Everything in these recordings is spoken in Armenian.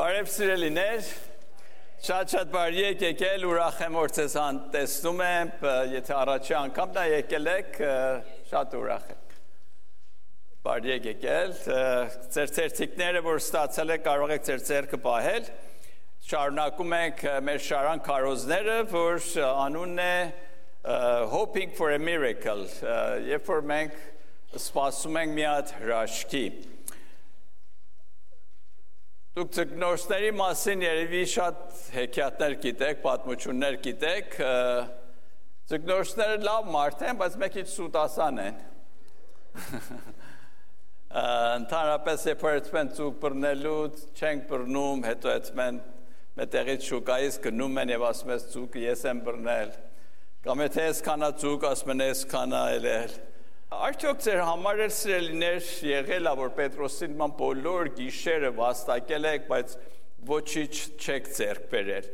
Բարև սիրելիներ, շատ բարի եք եկել, ուրախ եմ որ ձեզ տեսնում եմ, եթե առաջի անգամ դա եկել եք, շատ ուրախ եմ։ Բարի եք եկել, ձեր ցերտիկները որ ստացել եք կարող եք ձեր ձեռքը պահել։ Շարունակում ենք մեր շարան քարոզները, որ անունն է Hoping for a Miracle, երբ որ մենք սպասում ենք մի հատ հրաշքի։ Դուք ձկնորսների մասին երևի շատ հեքիաթներ գիտեք, պատմություններ գիտեք, ձկնորսները լավ մարդ են, բայց մեկ քիչ սուտասան են։ Ընդհանրապես երբ որ ձուկ բռնելու չենք բռնում, հետո մետեղից շուկայից գնում են եւ ասում ես ձուկը ես եմ բռնել, կամ եթե ես քանա ձուկ ասում են ես քանա էլ։ Արդյոք ձեր համար էլ սիրելիներ եղել է, որ Պետրոսին ման բոլոր գիշերը վաստակել եք, բայց ոչինչ չեք ձեռք բերել։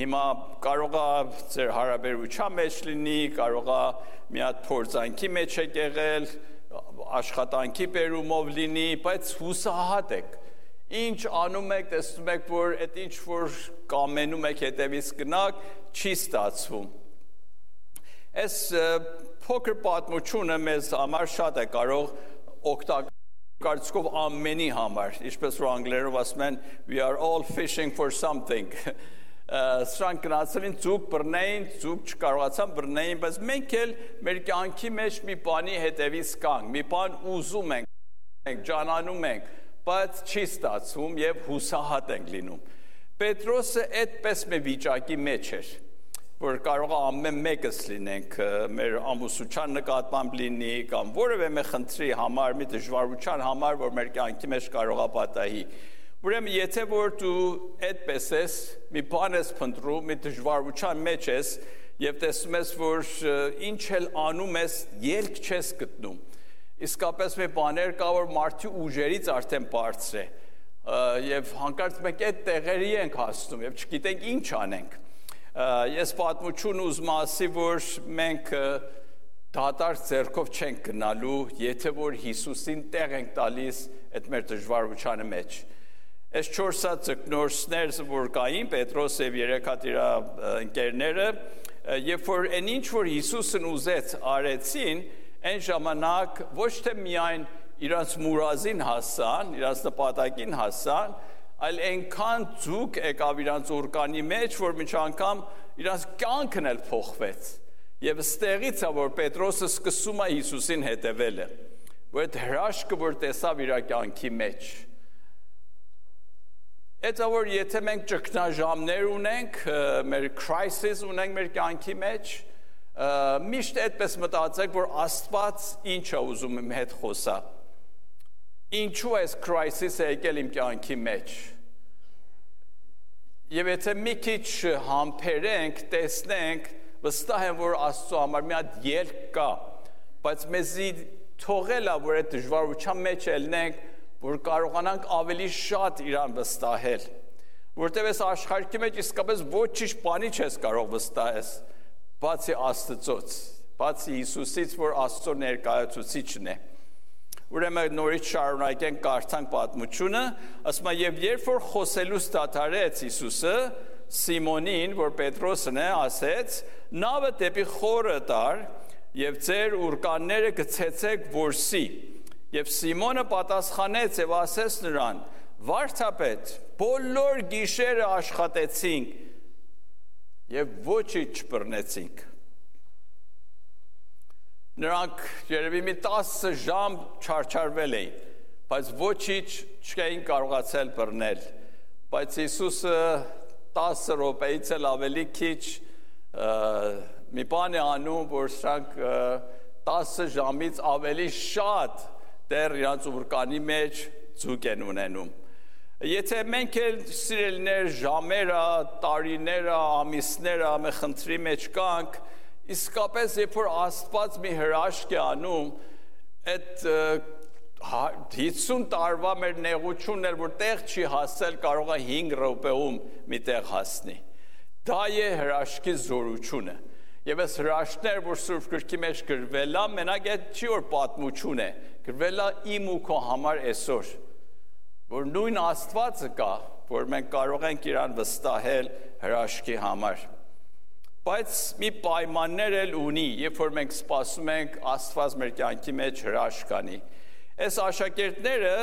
Հիմա կարող է ձեր հարաբերության մեջ լինի, կարող է մի հատ փորձանքի մեջ եք եղել, աշխատանքի բերումով լինի, բայց հուսահատ եք։ Ինչ անում եք, տեսնում եք, որ այդ ինչ որ կամենում եք հետևից գնաք, չի ստացվում։ Այս փոքր պատմությունը մեզ համար շատ է կարող օգտակարծկով ամենի համար, ինչպես որ անգլերով ասում են, we are all fishing for something։ Սրանք գնացել են ձուկ բռնեին, ձուկ չկարողացան բռնեին, բայց մենք էլ մեր կյանքի մեջ մի բանի հետևից կանք, մի բան ուզում ենք, ջանանում ենք, բայց չի ստացվում եւ հուսահատ ենք լինում։ Պետրոսը այդպես մի վիճակի մեջ էր, որ կարող է ամեն մեկս լինենք, մեր ամուսության նկատմամբ լինի, կամ որևէ մի խնդրի համար, մի դժվարության համար, որ մեր կյանքի մեջ կարող է պատահի։ Ուրեմն եթե որ դու այդպես ես, մի բան ես փնտրում, մի դժվարության մեջ ես, եւ տեսնում ես, որ ինչ էլ անում ես, ելք չես գտնում։ Իսկապես մի բաներ կա, որ մարդու ուժերից արդեն բարձր է, եւ հանկարծ մենք այդ տեղերի ենք հասնում եւ չգիտենք ինչ անենք։ Ես պատմություն ուզում ասի, որ մենք դատարկ ձեռքով չենք գնալու, եթե որ Հիսուսին տեղ ենք տալիս այդ մեր դժվարությանը մեջ։ Այս 4 հատ ձկնորսներ, որ կային, Պետրոս եւ 3 հատ իր ընկերները, երբ որ այն ինչ որ Հիսուսն ուզեց արեցին, այն ժամանակ ոչ թե միայն իրանց մուրազին հասան, իրանց նպատակին հասան, այլ այնքան ձուկ եկավ իրանց օրկանի մեջ, որ միջ անգամ իրանց կյանքն էլ փոխվեց։ Եվ ստեղից է, որ Պետրոսը սկսում է Հիսուսին հետևելը, որ այդ հրաշքը, որ տեսավ իր կյանքի մեջ։ Այդ որ եթե մենք ճգնաժամեր ունենք, մեր crisis ունենք մեր կյանքի մեջ, միշտ այդպես մտածեք, որ Աստված ինչ է ուզում իմ հետ խոսա։ Ինչու այս crisis-ը եկել իմ կյանքի մեջ։ Եվ եթե մի քիչ համբերենք, տեսնենք, վստահ եմ, որ Աստծո համար մի հատ ելք կա, բայց մեզի թողել է, որ այդ դժվարության մեջ ելնենք, որ կարողանանք ավելի շատ իրան վստահել։ Որտեւ այս աշխարհի մեջ իսկապես ոչինչ բանի չես կարող վստահես, բացի Աստծոց, բացի Հիսուսից, որ Աստծո ներկայացուցիչն է։ Ուրեմն նորից շարունակենք կարդանք պատմությունը, ասում է եւ երբ որ խոսելուց դադարեց Հիսուսը Սիմոնին, որ Պետրոսն է, ասեց. «Նավը դեպի խորը տար եւ ձեր ուրկանները գցեցեք որսի»։ Եվ Սիմոնը պատասխանեց եւ ասեց նրան. «Վարդապետ, բոլոր գիշերը աշխատեցինք եւ ոչինչ չբռնեցինք»։ Նրանք երևի մի 10 ժամ չարչարվել էին, բայց ոչինչ չէին կարողացել բռնել։ Բայց Հիսուսը 10 րոպեից էլ ավելի քիչ մի բան է անում, որ սրանք 10 ժամից ավելի շատ դեռ իրանց ուրկանի մեջ ձուկ են ունենում։ Եթե մենք էլ սիրելիներ ժամերը, տարիները, ամիսները մի խնդրի մեջ կանք, իսկապես երբ որ Աստված մի հրաշք է անում, այդ 50 տարվա մեր նեղությունն էլ որ տեղ չի հասել, կարող է 5 րոպեում մի տեղ հասնի։ Դա է հրաշքի զորությունը։ Եվ այս հրաշքներ, որ Սուրբ Գրքի մեջ գրվել է, մենակ այդ չի որ պատմություն է, գրվել է իմ ու քո համար այսօր, որ նույն Աստվածը կա, որ մենք կարող ենք իրան վստահել հրաշքի համար։ Բայց մի պայմաններ էլ ունի, երբ որ մենք սպասում ենք Աստված մեր կյանքի մեջ հրաշք անի։ Այս աշակերտները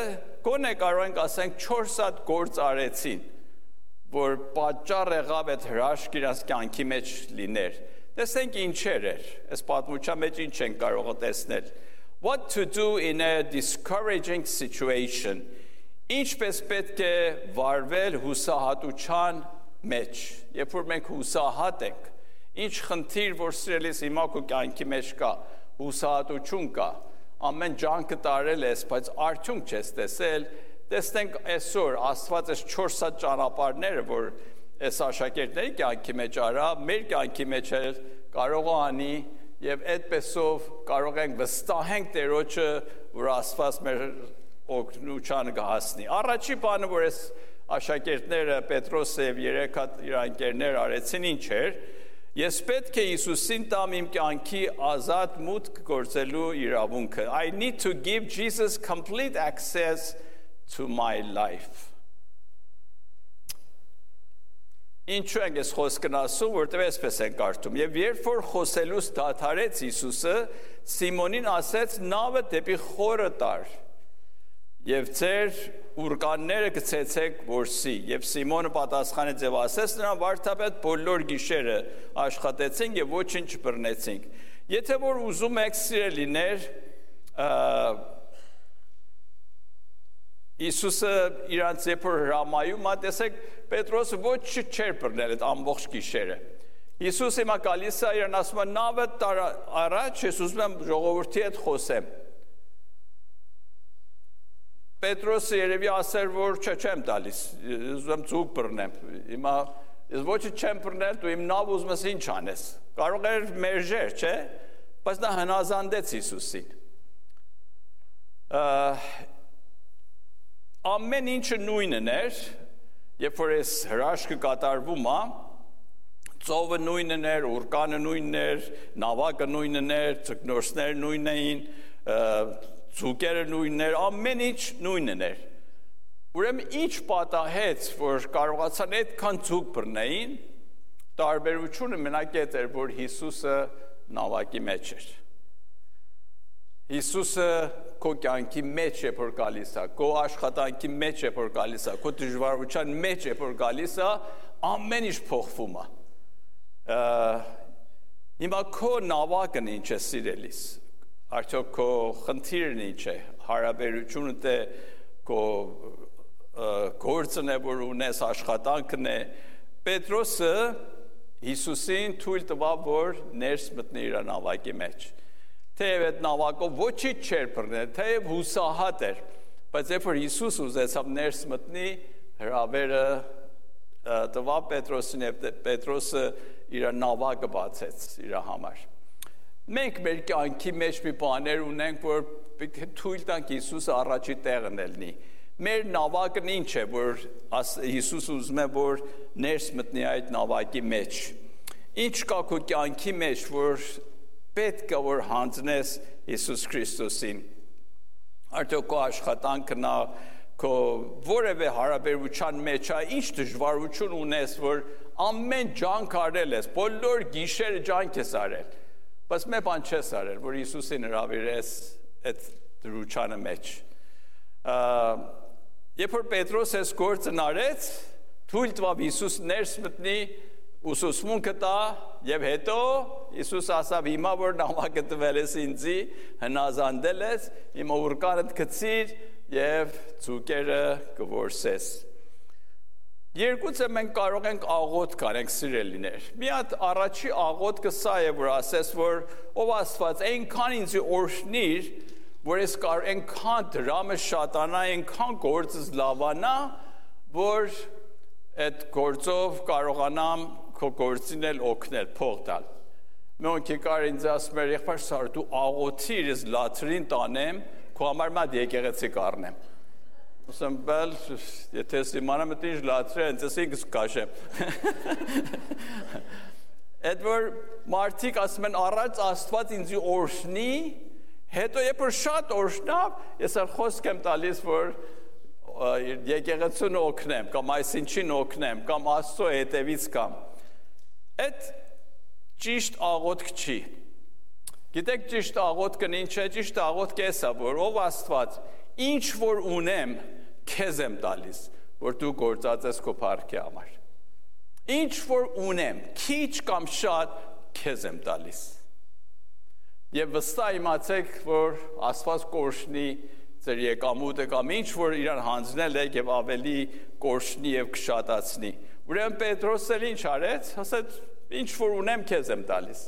գոնե կարող ենք ասենք 4 հատ գործ արեցին, որ պատճառ եղավ այդ հրաշք իրաց կյանքի մեջ լիներ։ Տեսնենք ինչեր էր, այս պատմության մեջ ինչ ենք կարող տեսնել։ What to do in a discouraging situation. Ինչպես պետք է վարվել հուսահատության մեջ, երբ որ մենք հուսահատ ենք, ինչ խնդիր, որ սիրելիս հիմա քո կյանքի մեջ կա, հուսահատություն կա, ամեն ջանքը տարել ես, բայց արդյունք չես տեսել, տեսնենք այսօր Աստված այս 4 հատ ճանապարհները, որ այս աշակերտների կյանքի մեջ արա, մեր կյանքի մեջ էլ կարող է անի եւ այդպեսով կարող ենք վստահենք Տերոջը, որ Աստված մեր օգնությանը կհասնի։ Առաջի բանը, որ այս աշակերտները Պետրոսը եւ 3 հատ իր ընկերներ արեցին, ինչ էր, ես պետք է Հիսուսին տամ իմ կյանքի ազատ մուտք գործելու իրավունքը։ I need to give Jesus complete access to my life. Ինչու ենք այս խոսքն ասում, որտեղ այսպես են կարդում։ Եվ երբ որ խոսելուց դադարեց Հիսուսը, Սիմոնին ասեց. «Նավը դեպի խորը տար, եւ ձեր ուրկանները գցեցեք որսի»։ Եվ Սիմոնը պատասխանեց եւ ասեց նրան. «Վարդապետ, բոլոր գիշերը աշխատեցինք եւ ոչինչ չբռնեցինք»։ Եթե որ ուզում եք սիրելիներ, Իսուսը իրանց երբ որ հրամայում, տեսեք, Պետրոսը ոչ չէր բռնել այդ ամբողջ գիշերը։ Իսուս հիմա գալիս է իրան ասում է նավը տար առաջ, ես ուզում եմ ժողովրդի հետ խոսեմ։ Պետրոսը երևի ասեր, որ չեմ տալիս, ուզում եմ ծուկ բռնեմ։ Հիմա ես ոչինչ չեմ բռնել, դու իմ նավ ուզում ես ինչ անես։ Կարող էր մերժեր, չէ՞։ Բայց նա հնազանդեց Իսուսին։ Ամեն ինչը նույնն էր, երբ որ այս հրաշքը կատարվում է, ծովը նույնն էր, ուրկանը նույնն էր, նավակը նույնն էր, ձկնորսները նույնն էին, ձուկերը նույնն էր, ամեն ինչ նույնն էր։ Ուրեմն ինչ պատահեց, որ կարողացան այդքան ձուկ բռնեին, տարբերությունը մենակ այդ էր, որ Հիսուսը նավակի մեջ էր։ Հիսուսը քո կյանքի մեջ է որ գալիս է, քո աշխատանքի մեջ է որ գալիս է, քո դժվարության մեջ է որ գալիս է, ամեն ինչ փոխվում է։ Հիմա քո նավակն ինչ է սիրելիս, արդյոք քո խնդիրն ինչ է, հարաբերությունդ է, քո գործն է, որ ունես, աշխատանքն է։ Պետրոսը Հիսուսին թույլ տվավ, որ ներս մտնի իր նավակի մեջ։ Թեև այդ նավակով ոչինչ չէր բռնել, թեև հուսահատ էր, բայց երբ որ Հիսուս ուզեցավ ներս մտնի, հրավերը տվավ Պետրոսին եւ Պետրոսը իր նավակը բացեց իր համար։ Մենք մեր կյանքի մեջ մի բաներ ունենք, որ թույլ տանք Հիսուսը առաջի տեղն լինի։ Մեր նավակն ինչ է, որ Հիսուսը ուզում է, որ ներս մտնի այդ նավակի մեջ։ Ինչ կա քո կյանքի մեջ, որ պետք է որ հանձնես Հիսուս Քրիստոսին։ Արդյոք քո աշխատանքն է, քո որևէ հարաբերության մեջ է, ինչ դժվարություն ունես, որ ամեն ջանք արել ես, բոլոր գիշերը ջանք ես արել, բայց մի բան չես արել, որ Հիսուսին հրավիրես այդ դրությանը մեջ։ Երբ որ Պետրոս այս գործն արեց, թույլ տվավ Հիսուս ներս մտնի, ուսուցմունքը տա եւ հետո Հիսուս ասավ հիմա որ նամակը տվել ես ինձի, հնազանդել ես, հիմա ուրկանդ գցիր եւ ցուկերը կորսես։ Երկուցը մենք կարող ենք աղոթք անենք սիրելիներ։ Մի հատ առաջի աղոթքը սա է, որ ասես, որ ով Աստված այնքան ինձ օրհնիր, որ ես կարող այնքան դրամը շատանա, այնքան գործս լավանա, որ այդ գործով կարողանամ քո գործին էլ օգնել, փող տալ։ Մենք եկար ինձ ասում էր, եղբայր Սար, դու աղոթիր, ես լաթրին տանեմ, քո համար մատ եկեղեցի կառնեմ։ Ասեմ, բել, եթե ես իմանամ այդ ինչ լաթրի, ինձ ինքս կաշեմ։ Այդ որ մարդիկ ասում են, առաջ Աստված ինձ օրհնի, հետո երբ որ շատ օրհնավ, ես խոսք եմ տալիս, որ եկեղեցուն օգնեմ, կամ այսինչին օգնեմ, կամ Աստծո հետևից կամ։ Այդ ճիշտ աղոթք չի։ Գիտեք ճիշտ աղոթքն ինչ է, ճիշտ աղոթքը էսա, որ ով Աստված, ինչ որ ունեմ, քեզ եմ տալիս, որ դու գործածես քո փառքի համար։ Ինչ որ ունեմ, քիչ կամ շատ, քեզ եմ տալիս։ Եվ վստահ իմացեք, որ Աստված կորշնի ձեր եկամուտը կամ ինչ որ իրան հանձնել եք եւ ավելի կորշնի եւ կշատացնի։ Ուրեմն Պետրոսը ինչ արեց, ասաց. Ինչ որ ունեմ քեզ եմ տալիս։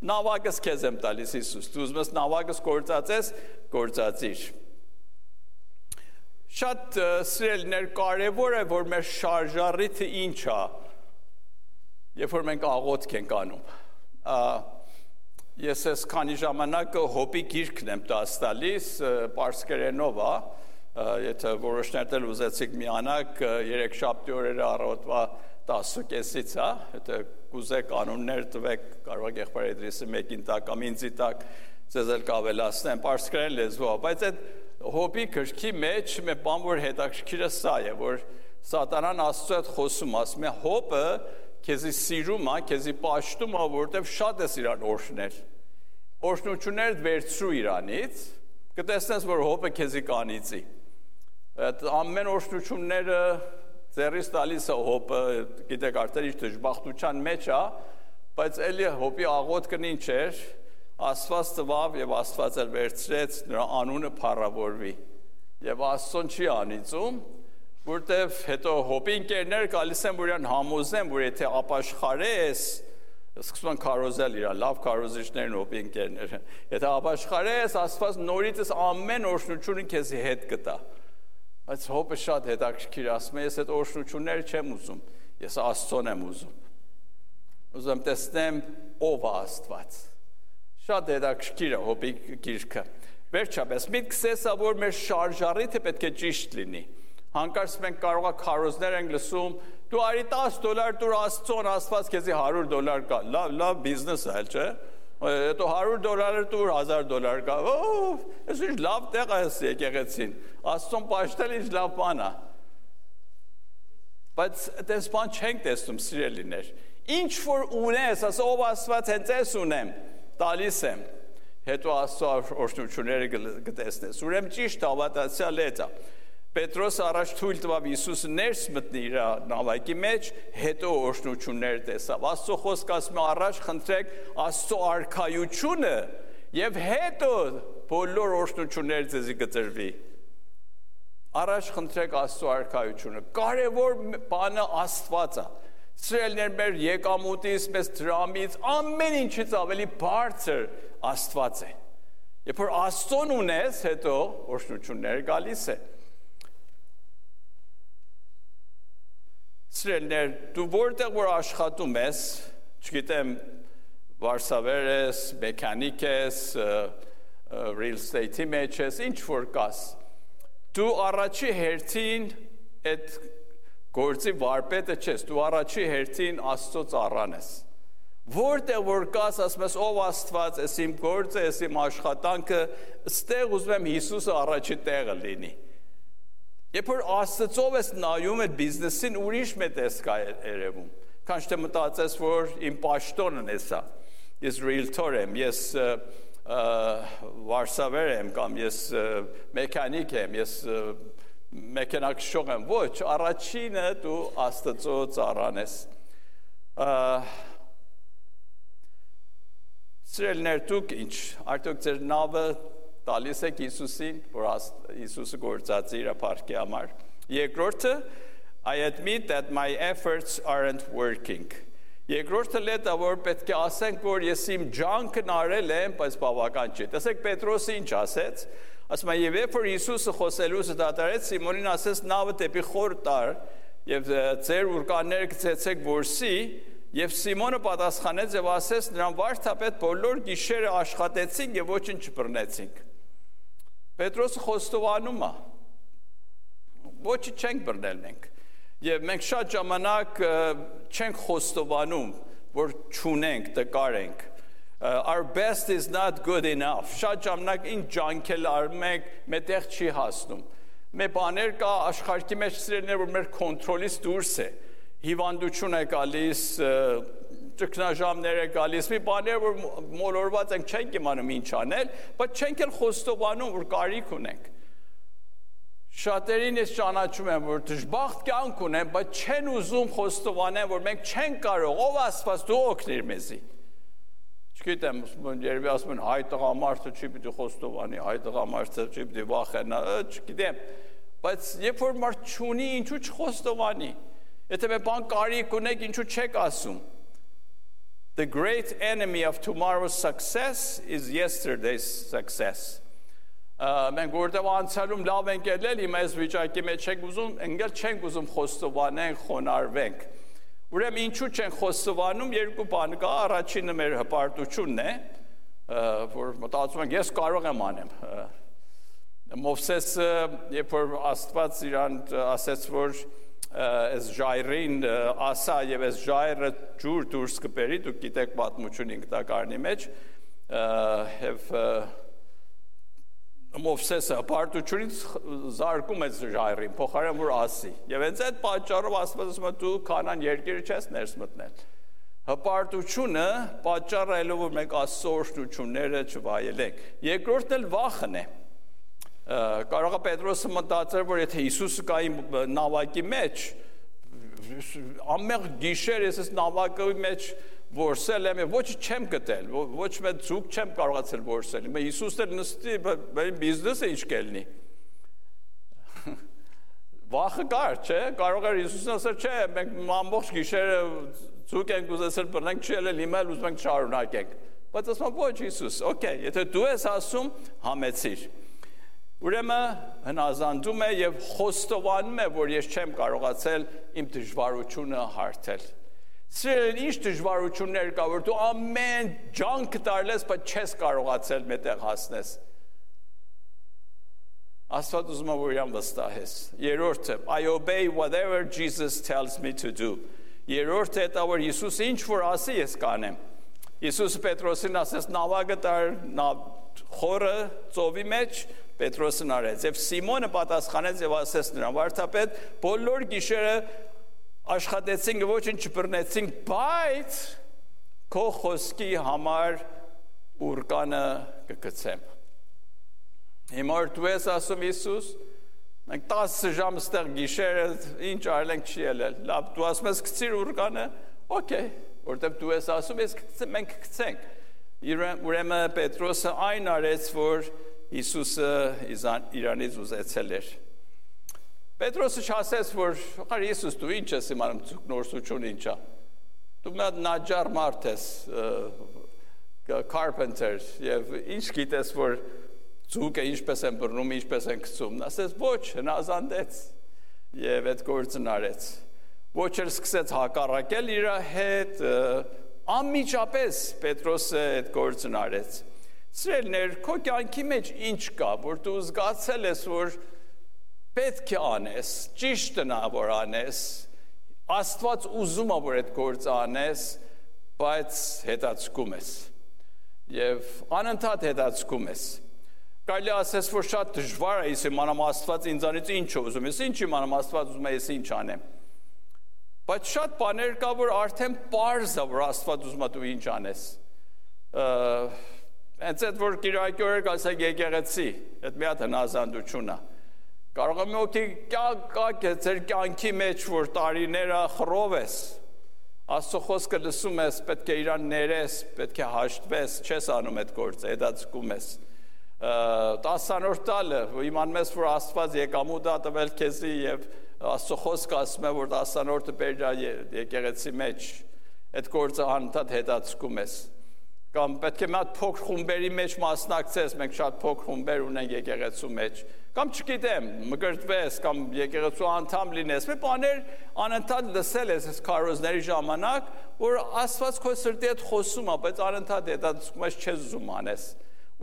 Նավակս քեզ եմ տալիս Հիսուս։ Դու ուզում ես նավակս գործածես, գործածիր։ Շատ սիրելիներ, կարևոր է, որ մեր շարժառիթը ինչ է, երբ որ մենք աղոթք ենք անում։ Ես այս քանի ժամանակ հոպի գիրքն եմ տալիս, պարսկերենով է, եթե որոշներ էլ ուզեցիք միանալ, երեքշաբթի օրերը առավոտվա 10:30-ից, եթե կուզեք կանոններ տվեք, կարող եք եղբայր Էդրիսի մեկին տակ կամ ինձի տակ, ձեզ էլ կավելացնեմ, պարսկերեն լեզվով, բայց այդ հոպի գրքի մեջ մի բան, որ հետաքրքիրը սա է, որ սատանան Աստծո հետ խոսում, ասում է հոպը քեզի սիրում է, քեզի պաշտում է, որովհետև շատ ես իրան օրհնել։ Օրհնությունները վերցրու իրանից, կտեսնես, որ հոպը քեզի կանիծի։ Այդ ամեն օրհնությունները ձեռից տալիս է հոպը, գիտեք արդեն իր դժբախտության մեջ է, բայց էլի հոպի աղոթքն ինչ էր, Աստված տվավ եւ Աստված էլ վերցրեց, նրա անունը փառավորվի։ Եվ Աստծուն չի անիծում, որտեվ հետո հոպի ընկերներ գալիս են, որ իրան համոզեն, որ եթե ապաշխարես, սկսում են քարոզել իրան, լավ քարոզիչներն հոպի ընկերները։ Եթե ապաշխարես, Աստված նորից ամեն օրհնությունը քեզի հետ կտա։ Բայց հոպը շատ հետաքրքիր ասում է, ես այդ օրհնությունները չեմ ուզում, ես Աստծուն եմ ուզում։ Ուզում տեսնեմ ով է Աստված։ Շատ հետաքրքիր է հոպի գիրքը։ Վերջապես, միտքս էսա, որ մեր շարժառիթը պետք է ճիշտ լինի։ Հանկարծ մենք կարող ենք քարոզներ ենք լսում, դու արի $10 դուր Աստծուն, Աստված քեզի $100 կա։ Լավ բիզնես է, չէ՞։ Հետո $100 դուր $1000 կա։ Այս ինչ լավ տեղ է եկեղեցին։ Աստծուն պաշտել ինչ լավ բան է։ Բայց այդպես բան չենք տեսնում, սիրելիներ։ Ինչ որ ունես, ասա ով Աստված հենց ես ունեմ, տալիս եմ։ Հետո Աստծո օրհնությունները կտեսնես։ Ուրեմն ճիշտ հավատացյալ է։ Պետրոս առաջ թույլ տվավ Հիսուսը ներս մտնի իր նավակի մեջ, հետո օրհնություններ տեսավ։ Աստծո խոսքը ասում է առաջ խնդրեք Աստծո արքայությունը եւ հետո բոլոր օրհնությունները ձեզի կտրվի։ Առաջ խնդրեք Աստծո արքայությունը։ Կարևոր բանը Աստված է։ Սիրելիներ, մեր եկամուտից, մեզ դրամից, ամեն ինչից ավելի բարձր Աստված է։ Երբ որ Աստծուն ունես, հետո օրհնությունները գալիս է։ Սիրելիներ, դու որտեղ որ աշխատում ես, չգիտեմ, վարսավեր ես, մեքանիկ ես, real estate-ի մեջ ես, ինչ որ կաս, դու առաջի հերթին այդ գործի վարպետը չես, դու առաջի հերթին Աստծո ծառան ես։ Որտեղ որ կաս, ասում ես ով Աստված, ես իմ գործը, ես իմ աշխատանքը, ստեղ ուզում եմ Հիսուսը առաջի տեղը լինի։ Երբ որ Աստծով ես նայում այդ բիզնեսին, ուրիշ մեծ տեսք է երևում։ Քան թե մտածես, որ իմ պաշտոնն է սա։ Ես realtor եմ, ես վարսավեր եմ կամ ես մեքանիկ եմ, ես մեքենաքշող եմ, ոչ, առաջինը դու Աստծո ծառան ես։ Սիրելիներ, դուք ինչ, արդյոք ձեր նավը տալիս եք Հիսուսին, որ Հիսուսը գործածի իր փառքի համար։ Երկրորդը, I admit that my efforts aren't working։ Երկրորդը լետա, որ պետք է ասենք, որ ես իմ ջանքն արել եմ, բայց բավական չի։ Տեսեք Պետրոսը ինչ ասեց, ասում է, եւ երբ որ Հիսուսը խոսելուց դատարեց, Սիմոնին ասեց, նավը դեպի խոր տար, եւ ձեր ուրկանները գցեցեք որսի, եւ Սիմոնը պատասխանեց եւ ասեց նրան վարդապետ բոլոր գիշերը աշխատեցինք եւ ոչինչ չբռնեցինք։ Պետրոսը խոստովանում է, ոչինչ չենք բռնել մենք։ Եվ մենք շատ ժամանակ չենք խոստովանում, որ չունենք, տկար ենք։ Our best is not good enough։ Շատ ժամանակ ինչ ջանքել արում ենք, մետեղ չի հասնում։ Մեր բաներ կա աշխարհի մեջ սիրելիներ, որ մեր կոնտրոլից դուրս է։ Հիվանդություն է գալիս, ճգնաժամներ է գալիս, մի բաներ, որ մոլորված ենք, չենք իմանում ինչ անել, բայց չենք էլ խոստովանում, որ կարիք ունենք։ Շատերին ես ճանաչում եմ, որ դժբախտ կյանք ունեն, բայց չեն ուզում խոստովանեն, որ մենք չենք կարող, ով Աստված դու օգնիր մեզի։ Չգիտեմ, երևի ասում են հայ տղամարդը չի պիտի խոստովանի, հայ տղամարդը չի պիտի վախենա, չգիտեմ, բայց երբ որ մարդ չունի, ինչու չխոստովանի։ Եթե մի բան կարիք ունեք, ինչու չեք ասում։ The great enemy of tomorrow's success is yesterday's success. Մենք որտեղ անցյալում լավ ենք ելել, հիմա այս վիճակի մեջ չենք ուզում, ընկել չենք ուզում խոստովանենք, խոնարհվենք։ Ուրեմն ինչու չենք խոստովանում, երկու բան կա, առաջինը մեր հպարտությունն է, որ մտածում ենք ես կարող եմ անեմ։ Մովսեսը, երբ որ Աստված իրան ասեց, որ այս ժայռին ասա եւ այս ժայռը ջուր դուրս կբերի, դուք գիտեք պատմություն 5 տակարանի մեջ, եւ Մովսեսը հպարտությունից զարկում է ժայռին, փոխարեն որ ասի։ Եվ հենց այդ պատճառով Աստված ասում է դու Քանան երկիրը չես ներս մտնել։ Հպարտությունը պատճառը է, որ մենք Աստծո օրհնությունները չվայելենք։ Երկրորդն էլ վախն է։ Կարող է Պետրոսը մտածել, որ եթե Հիսուսը կա իմ նավակի մեջ, ամեղ գիշեր ես նավակի մեջ որսել եմ, ոչ չեմ գտել, ոչ մեծ ձուկ չեմ կարողացել որսել։ Հիմա Հիսուսն էլ նստի, բայց բիզնեսը ինչ կելնի։ Վախը կար, չէ՞, կարող էր Հիսուսն ասել, չէ, մենք ամբողջ գիշերը ձուկ ենք ուզեցել բռնենք, չի ելել, հիմա էլ ուզում ենք շարունակենք։ Բայց ասում ոչ Հիսուս, օքեյ, եթե դու ես ասում, համեցիր։ Ուրեմն հնազանդում է եւ խոստովանում է, որ ես չեմ կարողացել իմ դժվարությունը հարթել։ Սիրել ինչ դժվարություններ կա, որ դու ամեն ջանք տարլես, բայց չես կարողացել մետեղ հասնես։ Աստված ուզում է, որ իրան վստահես։ Երրորդը, I obey whatever Jesus tells me to do։ Երրորդը դա որ Հիսուս ինչ որ ասի, ես կանեմ։ Հիսուսը Պետրոսին ասեց նավակը տար խորը ծովի մեջ, Պետրոսն արեց։ Եվ Սիմոնը պատասխանեց եւ ասեց նրան. Վարդապետ, բոլոր գիշերը աշխատեցինք, ոչինչ չբռնեցինք, բայց քո խոսքի համար ուրկանը կգցեմ։ Հիմա դու ես ասում Հիսուս, մենք 10 ժամ ստեղ գիշերը ինչ արենք չի ելել։ Լավ, դու ասում ես գցիր ուրկանը, օքեյ, որտեղ դու ես ասում, մենք կգցենք։ Ուրեմն Պետրոսը այն արեց, որ Հիսուսը իրանից ուզեցել էր։ Պետրոսը չասեց, որ Հիսուս դու ինչ ես իմանում նորսություն ինչ է։ Դու մի հատ նաջար մարդ ես, carpenter, եւ ինչ գիտես, որ ձուկը ինչպես են բռնում, ինչպես են գցում։ Ասեց ոչ, հնազանդեց եւ այդ գործն արեց։ Ոչ էլ սկսեց հակառակել իր հետ, անմիջապես Պետրոսը այդ գործն արեց։ Սիրելիներ, քո կյանքի մեջ ինչ կա, որ դու զգացել ես, որ պետք է անես, ճիշտն է որ անես, Աստված ուզում է որ այդ գործը անես, բայց հետաձգում ես եւ անընդհատ հետաձգում ես։ Կարելի ասես, որ շատ դժվար է, ես իմանամ Աստված ինձանից ինչ է ուզում, ես ինչ իմանամ Աստված ուզում է ես ինչ անեմ։ Բայց շատ բաներ կա, որ արդեն պարզ է, որ Աստված ուզում է դու ինչ անես։ Հենց այդ որ Կիրակի օրը ասեք եկեղեցի, այդ մի հատ հնազանդություն է։ Կարող է մի օքի կա ձեր կյանքի մեջ, որ տարիները խռով ես, Աստծո խոսքը լսում ես, պետք է իրան ներես, պետք է հաշտվես, չես անում այդ գործը, հետաձգում ես։ 10-րդ տալը, իմանում ես, որ Աստված եկամուտ է տվել քեզի եւ Աստծո խոսքը ասում է, որ 10-րդը բերյա եկեղեցի մեջ, այդ գործը անընդհատ հետաձգում ես։ Կամ պետք է մի հատ փոքր խումբերի մեջ մասնակցես, մենք շատ փոքր խումբեր ունենք եկեղեցու մեջ, կամ չգիտեմ, մկրտվես, կամ եկեղեցու անդամ լինես, մի բաներ անընդհատ լսել ես այս քարոզների ժամանակ, որ Աստված քո սրտի հետ խոսում է, բայց անընդհատ հետաձգում ես, չես ուզում անես։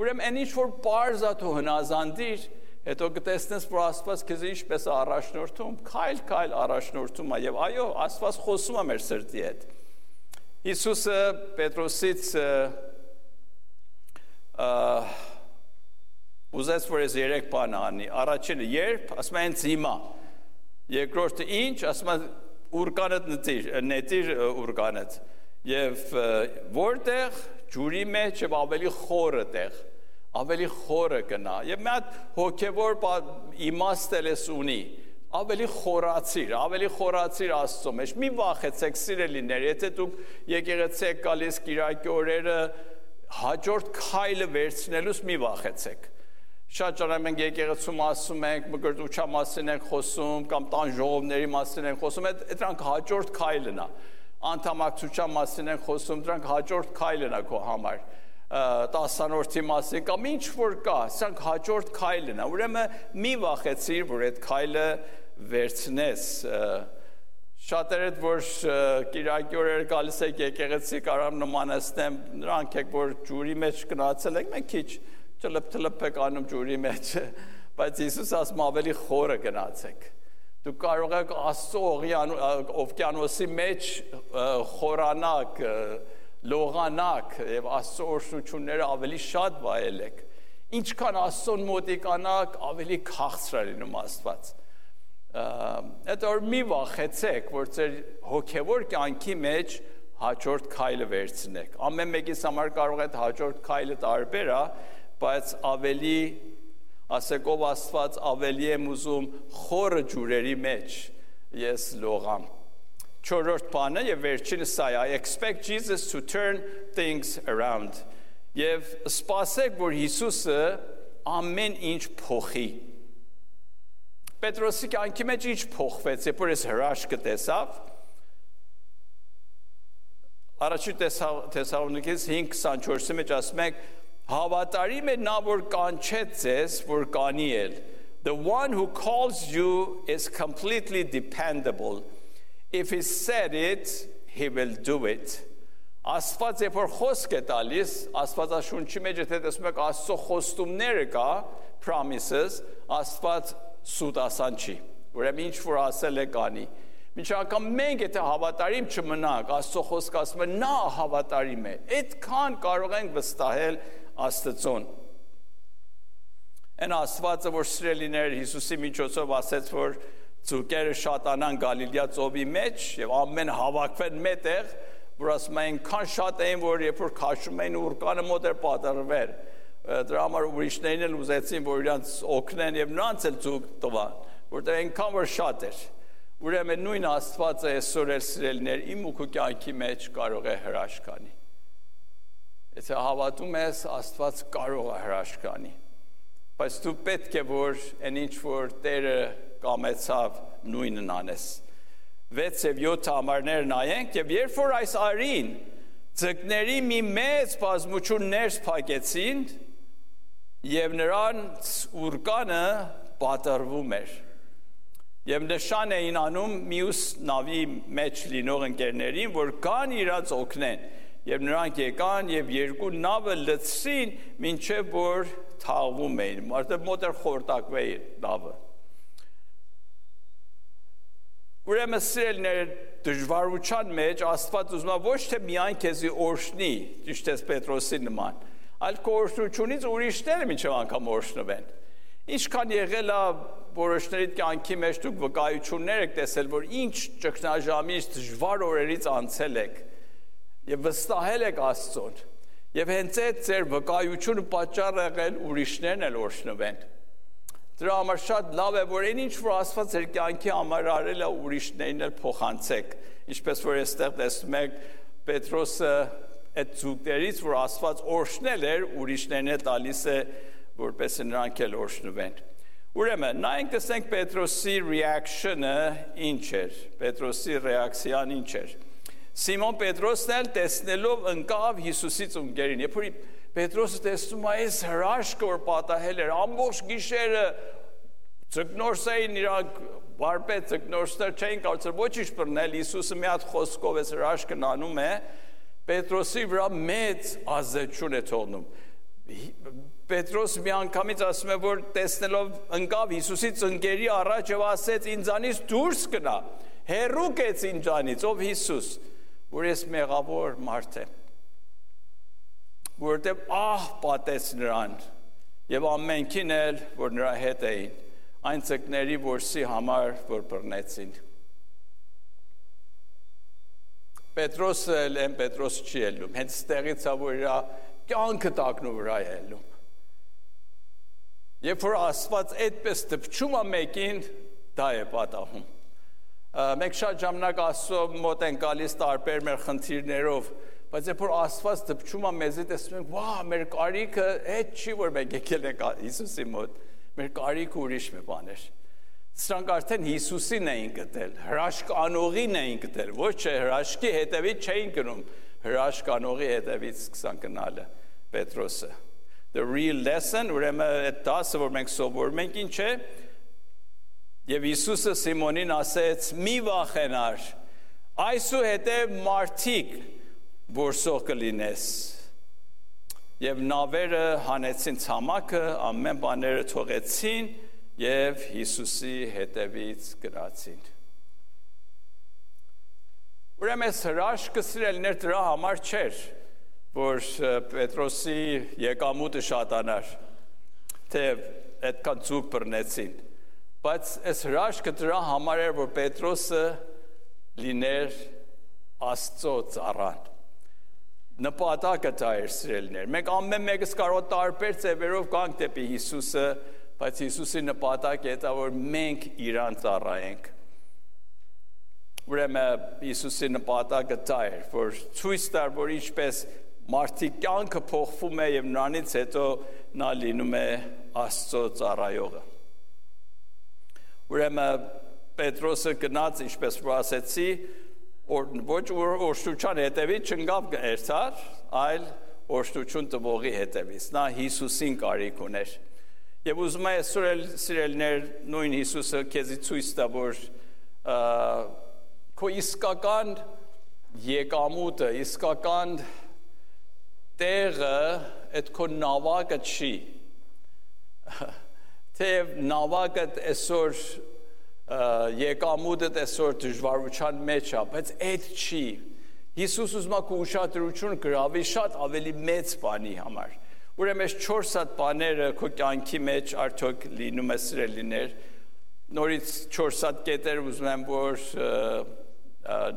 Ուրեմն այն ինչ որ պարզ է դու հնազանդիր, հետո կտեսնես, որ Աստված քեզ ինչպես է առաջնորդում, քայլ առաջնորդում է, եւ այո, Աստված խոսում է մեր սրտի հետ։ Հիսուսը Պետրոսից ուզեց որ ես 3 բան անի առաջինը երբ ասում են հիմա երկրորդը ինչ ասում են ուրկանդ նետիր ուրկանդ եւ որտեղ ջուրի մեջ եւ ավելի խորը տեղ ավելի խորը գնա եւ մի հատ հոգեվոր իմաստել ես ունի ավելի խորացիր Աստծո մեջ մի վախեցեք սիրելիներ եթե դուք եկեղեցի եք գալիս կիրակի օրերը հաջորդ քայլը վերցնելուց մի վախեցեք շատ ճանաչում ենք եկեղեցում ասում ենք մկրտության մասին ենք խոսում կամ տան ժողովների մասին ենք խոսում դրանք հաջորդ քայլն է անդամակցության մասին ենք խոսում դրանք հաջորդ քայլն է քո համար 10-րդի մասին կամ ինչ որ կա սրանք հաջորդ քայլն է ուրեմն մի վախեցիր որ այդ քայլը վերցնես շատերը որ կիրակի օրերը գալիս եք եկեղեցի կարամ նմանացնեմ նրանք եք որ ջուրի մեջ գնացել եք մենք քիչ ճլփ եք անում ջուրի մեջ բայց Հիսուս ասում ավելի խորը գնացեք դուք կարող եք Աստծո օվկիանոսի մեջ խորանաք լողանաք եւ Աստծո օրհնությունները ավելի շատ վայելեք ինչքան Աստծոն մոտիկանաք ավելի քաղցր լինում Աստված այդ որ մի վախեցեք որ ձեր հոգեվոր կյանքի մեջ հաջորդ քայլը վերցնեք ամեն մեկից համար կարող է հաջորդ քայլը տարբեր է բայց ավելի ասեք ով Աստված ավելի եմ ուզում խորը ջուրերի մեջ ես լողամ Չորրորդ բանը եւ վերջինը սա է I expect Jesus to turn things around եւ սպասեք որ Հիսուսը ամեն ինչ փոխի Պետրոսի կյանքի մեջ ինչ փոխվեց երբ որ ես հրաշքը տեսավ Առաջին Թեսաղոնիկես 5:24-ի մեջ ասում ենք Հավատարիմ է նա որ կանչեց ձեզ որ կանի էլ The one who calls you is completely dependable If he said it, he will do it. Աստված երբ որ խոսք է տալիս, Աստվածաշունչի մեջ եթե տեսնում եք Աստծո խոստումները կա, promises, Աստված սուտասան չի։ Ուրեմն ինչ որ ասել է կանի։ Մինչ անգամ մենք եթե հավատարիմ չմնանք, Աստծո խոսքը ասում է նա հավատարիմ է։ Այդքան կարող ենք վստահել Աստծուն։ Այն Աստվածը որ սիրելիներ Հիսուսի միջոցով ասեց որ Ծուկերը շատանան Գալիլեա ծովի մեջ եւ ամեն հավաքվեն մետեղ որ ասում են քան շատ էին որ երբ որ քաշում էին ուրկանը մոտ էր պատրվել դրա համար ուրիշներն էլ ուզեցին որ իրանց օգնեն եւ նրանց էլ ծուկ տվան որտեղ այնքան որ շատ էր ուրեմն նույն Աստվածը այսօր էլ սիրելիներ իմ ու քո կյանքի մեջ կարող է հրաշք անի եթե հավատում ես Աստված կարող է հրաշք անի բայց դու պետք է որ այն ինչ որ Տերը կամեցավ նույնն անես 6 եւ 7 համարներ նայենք եւ երբ որ այս արին ձկների մի մեծ բազմություն ներս փակեցին եւ նրանց ուրկանը պատրվում էր եւ նշան էին անում մյուս նավի մեջ լինող ընկերներին որ կան իրաց օգնեն եւ նրանք եկան եւ երկու նավը լցրին մինչեւ որ թաղվում էին մարդը մոտեր խորտակվեի նավը Ուրեմն սիրելիներ դժվարության մեջ Աստված ուզում է ոչ թե միայն քեզի օրհնի, ճիշտ է Պետրոսի նման, այլ քո օրհնությունից ուրիշները մինչև անգամ օրհնվեն։ Ինչքան եղել է որոշների կյանքի մեջ դուք վկայություններ եք տեսել, որ ինչ ճգնաժամից դժվար օրերից անցել եք եւ վստահել եք Աստծուն։ Եվ հենց այդ ձեր վկայությունը պատճառ եղել ուրիշներն էլ օրհնվեն։ Դրա համար շատ լավ է որ այն ինչ որ Աստված ձեր կյանքի համար արել է ուրիշներին էլ փոխանցեք ինչպես որ այստեղ տեսնում եք Պետրոսը այդ զուգներից որ Աստված օրհնել էր ուրիշներն է տալիս է որպես նրանք էլ օրհնվեն Ուրեմն նայենք տեսնենք Պետրոսի reaction-ը ինչ էր Պետրոսի ռեակցիան ինչ էր Սիմոն Պետրոսն էլ տեսնելով ընկավ Հիսուսից ունկերին երբ որ Պետրոսը տեսնում է այս հրաշքը որ պատահել էր ամբողջ գիշերը Ձկնորսային իրանք վարպետ ձկնորսներ չէին կարծել ոչինչ բռնել Հիսուսը մի հատ խոսքով այս հրաշքն անում է Պետրոսի վրա մեծ ազդեցություն է թողնում Պետրոս մի անգամից ասում է որ տեսնելով ընկավ Հիսուսից ընկերի առաջ եւ ասեց ինձանից դուրս գնա հեռու կեց ինձանից ով Հիսուս որ ես մեղավոր մարդ եմ որտեղ պատեց նրան եւ ամենքին էլ, որ նրա հետ էին, այն ցկների որսի համար, որ բռնեցին։ Պետրոսը են Պետրոս չի ելնում, հենց ստեղից որ իրա կյանքը տակնու վրա է ելնում։ Երբ որ Աստված այդպես դպչում է մեկին, դա է պատահում։ Մենք շատ ժամանակ Աստծո մոտ են գալիս տարբեր մեր խնդիրներով, բայց երբ որ Աստված դպչում է մեզի, տեսնում ենք, վա, մեր կարիքը այդ չի, որ մենք եկել ենք Հիսուսի մոտ, մեր կարիքը ուրիշ մի բան էր։ Սրանք արդեն Հիսուսին էին գտել, հրաշք անողին էին գտել, ոչ չէ հրաշքի հետևից չէին գնում, հրաշք անողի հետևից սկսան գնալը Պետրոսը։ The real lesson, ուրեմն այդ դասը, որ մենք սովորում ենք, ինչ է, եւ Հիսուսը Սիմոնին ասեց՝ մի վախենար, այսուհետև մարդիկ որսող կլինես։ Եվ նավերը հանեցին ցամաքը, ամեն բաները թողեցին եւ Հիսուսի հետևից գնացին։ Ուրեմն հրաշքը սիրելիներ դրա համար չէր, որ Պետրոսի եկամուտը շատանար, թե այդքան ցուկ բռնեցին, բայց այս հրաշքը դրա համար էր, որ Պետրոսը լիներ Աստծո ծառան։ Նպատակը դա էր սիրելիներ։ Մենք ամեն մեկս կարող տարբեր ձևերով գանք դեպի Հիսուսը, բայց Հիսուսի նպատակը դա որ մենք իրան ծառայենք։ Ուրեմն Հիսուսի նպատակը դա էր, որ ցույց տար, որ ինչպես մարդի կյանքը փոխվում է եւ նրանից հետո նա լինում է Աստծո ծառայողը։ Ուրեմն Պետրոսը գնաց, ինչպես որ ասեցի, ոչ օրհնության հետևից չընկավ երթար, այլ օրհնություն տվողի հետևից։ Նա Հիսուսին կարիք ուներ։ Եվ ուզում եմ այսօր սիրելիներ նույն Հիսուսը քեզի ցույց տա, որ քո իսկական եկամուտը, իսկական տեղը այդ քո նավակը չի։ Թեև նավակը այսօր եկամուտը այսօր դժվարության մեջ է, բայց այդ չի։ Հիսուս ուզում է քո ուշադրությունը գրավի շատ ավելի մեծ բանի համար։ Ուրեմն այս 4 հատ բաները քո կյանքի մեջ արդյոք լինում է սիրելիներ։ Նորից 4 հատ կետեր ուզում եմ որ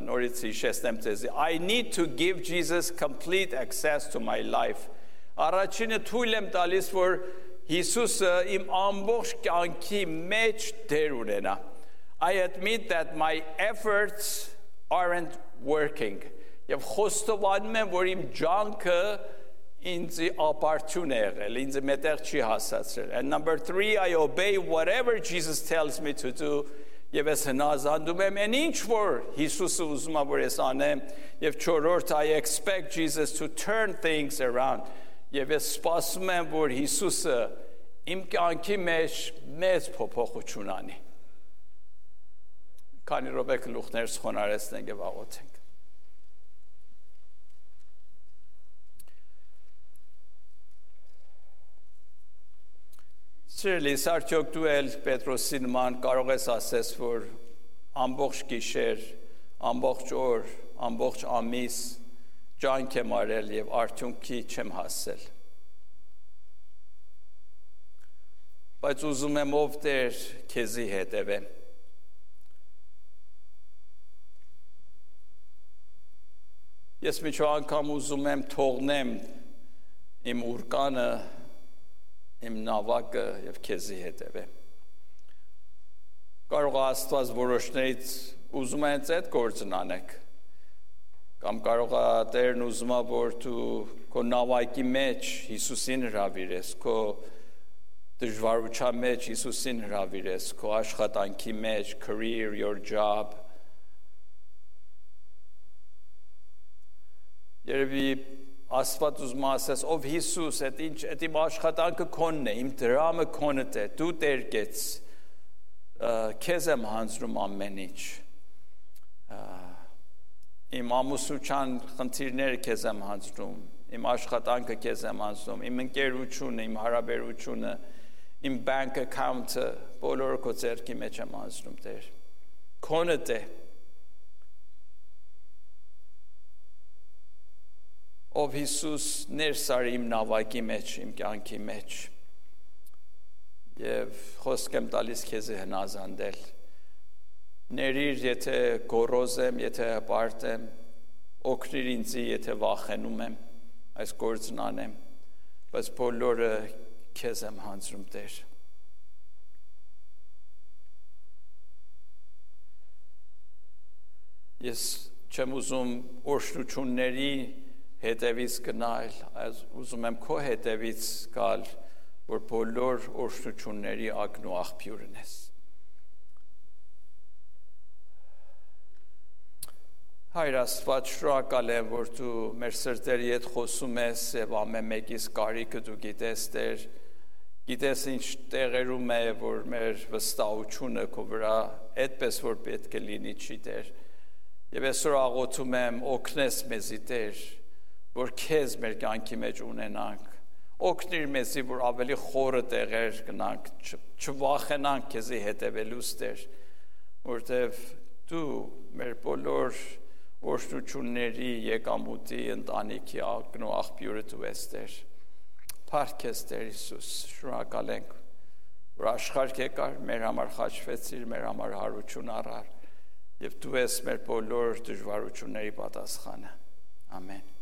նորից հիշեցնեմ ձեզ։ I need to give Jesus complete access to my life։ Առաջինը թույլ եմ տալիս, որ Հիսուսը իմ ամբողջ կյանքի մեջ դեր ունենա։ I admit that my efforts aren't working։ Եվ խոստովանում եմ, որ իմ ջանքը ինձ ապարդյուն է եղել, ինձ մետեղ չի հասացրել։ And number 3, I obey whatever Jesus tells me to do։ Եվ ես հնազանդում եմ այն ինչ որ Հիսուսը ուզում է որ ես անեմ, եւ 4-րդ I expect Jesus to turn things around։ Եվ ես սպասում եմ որ Հիսուսը իմ կյանքի մեջ մեծ փոփոխություն անի։ Քանի րոպե գլուխներս խոնարհեցնենք եւ աղոթենք։ Սիրելիս, արդյոք դու էլ Պետրոսի նման կարող ես ասես, որ ամբողջ գիշեր, ամբողջ օր, ամբողջ ամիս ջանք եմ արել եւ արդյունքի չեմ հասել։ Բայց ուզում եմ ով Տեր քեզի հետևեմ։ Ես միջո անգամ ուզում եմ թողնեմ իմ ուրկանը, իմ նավակը եւ քեզի հետևեմ։ Կարող է Աստված որոշներից ուզում է այդ գործն անեք։ Կամ կարող է Տերն ուզում է որ դու քո նավակի մեջ Հիսուսին հրավիրես, քո դժվարության մեջ Հիսուսին հրավիրես, քո աշխատանքի մեջ, career, your job։ Երևի Աստված ուզում է ասես, ով Հիսուս, այդ իմ աշխատանքը քոնն է, իմ դրամը քոնդ է, դու Տեր կեց, քեզ եմ հանձնում ամեն ինչ, իմ ամուսնության խնդիրները քեզ եմ հանձնում, իմ աշխատանքը քեզ եմ հանձնում, իմ ընկերությունը, իմ հարաբերությունը, իմ bank account-ը, բոլորը քո ձեռքի մեջ եմ հանձնում, Տեր, քոնդ է։ Ով Հիսուս ներս արի իմ նավակի մեջ, իմ կյանքի մեջ։ Եվ խոսք եմ տալիս քեզ հնազանդել։ Ներիր, եթե գոռոզ եմ, եթե հպարտ եմ, օգնիր ինձ, եթե վախենում եմ, այս գործն անեմ, բայց բոլորը քեզ եմ հանձնում, Տեր։ Ես չեմ ուզում օրհնությունների հետևից գնալ, այլ ուզում եմ քո հետևից գալ, որ բոլոր օրհնությունների ակն ու աղբյուրն ես։ Հայր Աստված, շնորհակալ եմ, որ դու մեր սրտերի հետ խոսում ես եւ ամեն մեկիս կարիքը դու գիտես, Տեր, գիտես ինչ տեղերում է, որ մեր վստահությունը քո վրա այդպես որ պետք է լինի չի, Տեր։ Եվ այսօր աղոթում եմ օգնես մեզի, Տեր, որ քեզ մեր կյանքի մեջ ունենանք, օգնիր մեզի, որ ավելի խորը տեղեր գնանք, չվախենանք քեզի հետևելուց, Տեր, որտեվ դու մեր բոլոր օրհնությունների, եկամուտի, ընտանիքի ակն ու աղբյուրը դու ես, Տեր։ Փառք ես, Տեր Հիսուս, շնորհակալ ենք, որ աշխարհ եկար, մեր համար խաչվեցիր, մեր համար հարություն առար, եւ դու ես մեր բոլոր դժվարությունների պատասխանը։ Ամեն։